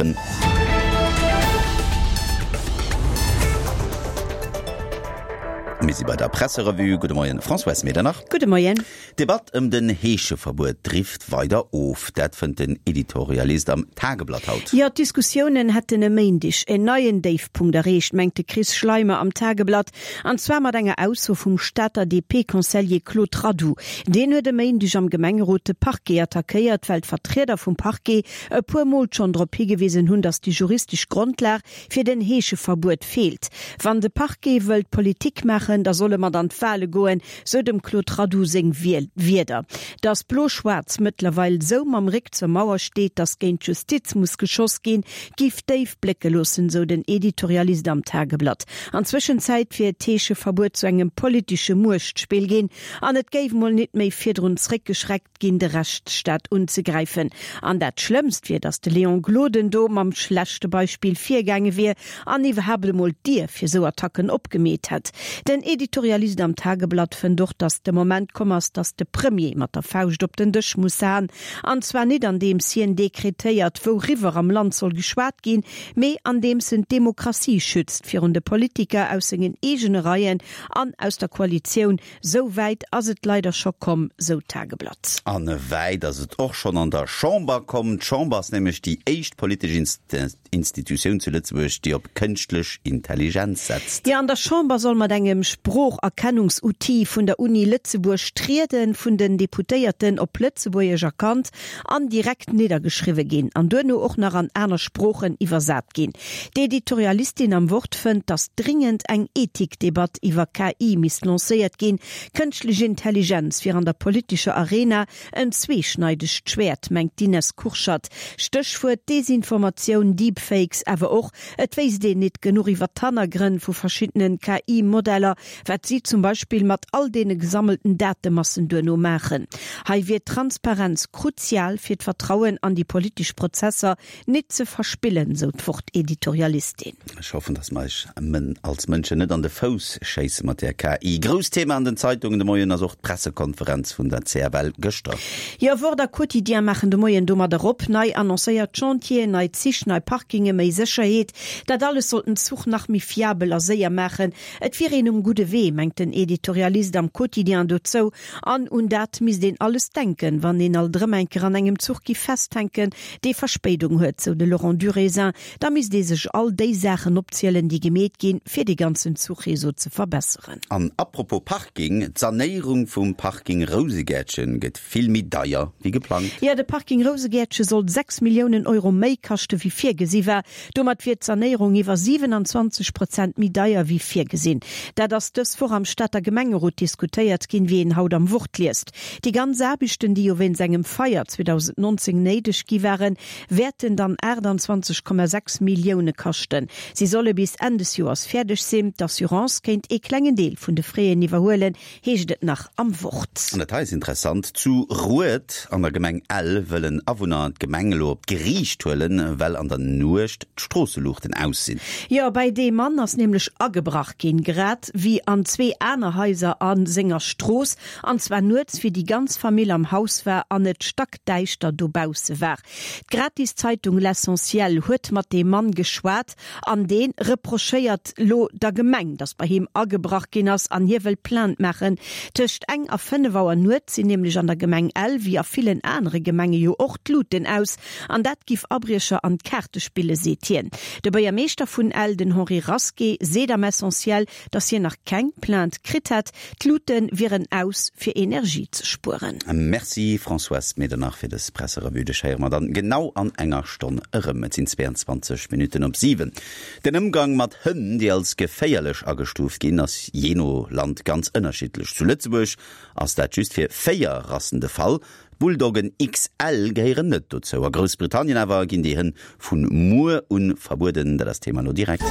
Mir si bei der Presserevue. Gudde Moien, Françoise Medernach. Gudde Moien. D'Debatt ëm den Heescheverbuet drift weider of. Dat fënnt den Editorialist am Tageblatt haut. Jo, d'Diskussiounen hätten e Méindeg en neien Déifpunkt erreecht, mengt de Chris Schleimer am Tageblatt. An zwar mat enger Ausso vum Stater DP-Conseiller Claude Radoux. Deen huet e Méindeg am Gemengerot de Parquet attackéiert, well d'Vertrieder vum Parquet e puer Mol schonn drop higewisen hunn, datt déi juristesch Grondlag fir den Heescheverbuet feelt. Wann de Parquet wëllt Politik maachen, da soll e mat an d'Wale goen, sou dem Claude Radoux seng Wierder. Datt Blo-Schwaarz mëttlerweil sou mam Réck zur Mauer steet, datt géint d'Justiz muss geschoss ginn, giff déif blécke loossen, sou den Editorialist am Tageblatt. An Zwëschenzäit wier d'Heescheverbuet zu engem politesche Muechtspill ginn an et géif mol nit méi virdrun zréckgeschreckt ginn, de Rechtsstaat unzegräifen. An dat Schlëmmst wier, datt de Léon Gloden do mam schlechte Beispill virgaange wier an iwwerhaapt emol d'Dier fir sou Attacken opgemeet hätt. Den Editorialist am Tageblatt fënnt och, datt de Moment komm ass, datt de Premier mat der Fauscht op den Dësch muss haen. An zwar nit andeems hien dekretéiert, wouriwwer am Land soll geschwat ginn, mee andeems en d'Demokratie schützt virun de Politiker aus sengen eegene Reien an aus der Koalitioun, Sou wäit ass et leider scho komm, sou d'Tageblatt. An wäit ass et och schonn an der Chamber komm. D'Chamber ass nämlech déi éischt politesch Institutioun zu Lëtzebuerg, déi op kënschtlech Intelligenz setzt. Jo, an der Chamber soll mat engem Sproocherkennungsoutil vun der Uni Lëtzebuerg d'Riede vun den Deputéierten op Lëtzebuergesch erkannt an direkt niddergeschriwwe ginn an duerno och nach an aner Sproochen iwwersat ginn. D'Editorialistin am Wort fënnt, datt dringend eng Ethikdebatt iwwer KI misst lancéiert ginn. Kënschtlech Intelligenz wier an der politescher Arena en zweeschneidegt Schwäert, mengt d'Ines Kurschat. Stéchwuert Desinformatioun, Deepfakes, awer och, et wéisst een nit genuch iwwer d'Hannergrënn vu verschiddenen KI-Modeller, wat si zum Beispill mat all deene gesammelten Datemassen duerno maachen. Hei wier d'Transparenz kruzial fir d'Vertrauen an déi politesch Prozesser nit ze verspillen, sou d'Wort-Editorialistin. Ech hoffen, dass mer eis als Mënschen net an de Fouss schéisse mat där KI. Grousst Thema an den Zeitungen de Moien ass och d'Pressekonferenz vun der CFL gëschter. Jo, Wort a Quotidien maachen de Moien domadder op. Nei annoncéiert Chantieren, nei Zich, nei Parkinge, méi Sécherheet, dat alles soll den Zuch nach méi fiabel a séier maachen. Et wier een um gudde Wee, mengt den Editorialist am Quotidien dozou. An un dat misst een alles denken, wann een alt erëm eng Kéier an engem Zuch giff festhänken, dee Verspéidung huet, sou de Laurent Durézin. Da misst ee sech all déi Saachen opzielen, déi gemeet ginn, fir dee ganzen Zuchreseau ze verbesseren. An apropos Parking, D'Sanéierung vum Parking Rousegäertchen gëtt vill méi deier wéi geplangt. Jo, de Parking Rousegäertche soll 6 Milliounen Euro méi kaschte wéi virgesi war. Domat wier d'Sanéierung iwwer 27 Prozent méi deier wéi virgesinn. Dat ass dës Woch am Stater Gemengerot diskutéiert ginn, wéi een haut am Wort liest. Déi ganz Aarbechten, déi jo wéinst engem Feier 2019 néideg gi waren, wäerten dann 28,6 Millioune kaschten. Si solle bis Enn des Joers fäerdeg sinn. D'Assurance kéint ee klengen Deel vun de Fräen iwwerhuelen, heescht et nach am Wort. An dat hei ass interessant, Zu Rued an der Gemeng Ell wëllen Awunner d'Gemeng elo op d'Geriicht huelen, well an der Nuecht d'Stroosseluuchten aus sinn. Jo, bei deem Mann ass nämlech agebrach ginn, grad wéi an zwee aner Haiser a senger Strooss, an zwar nuets, wéi déi ganz Famill am Haus war an et stackdäischter dobausse war. D'Gratiszeitung L'Essentiel huet mat deem Mann geschwat. An dee reprochéiert lo der Gemeng, datt bei him agebrach ginn ass an hie wëll Plainte maachen. Tëscht eng a 5 Auer nuets sinn nämlech an der Gemeng Ell, wéi a villen anere Gemenge jo och, d'Luuten aus. An dat giff Abriecher an d'Kaarte spille seet hien. De Buergermeeschter vun Ell, den Henri Rasqué, seet am Essentiel, datt hien nach keng Plainte kritt hätt. D'Luute wieren aus, fir Energie ze spueren. Merci Françoise Medernach fir dës Presserevue. Dech héiere mer dann genau an enger Stonn erëm. Et sinn 22 Minutten op 7. Den Ëmgang mat Hënn, déi als geféierlech agestuuft ginn, ass jee no Land ganz ënnerschiddlech. Zu Lëtzebuerg ass dat just fir 4 Rassen de Fall. D'Bulldoggen XL gehéieren net dozou. A Groussbritannien awer ginn déi Hënn vu muer un verbueden. Dat ass d'Thema elo direkt.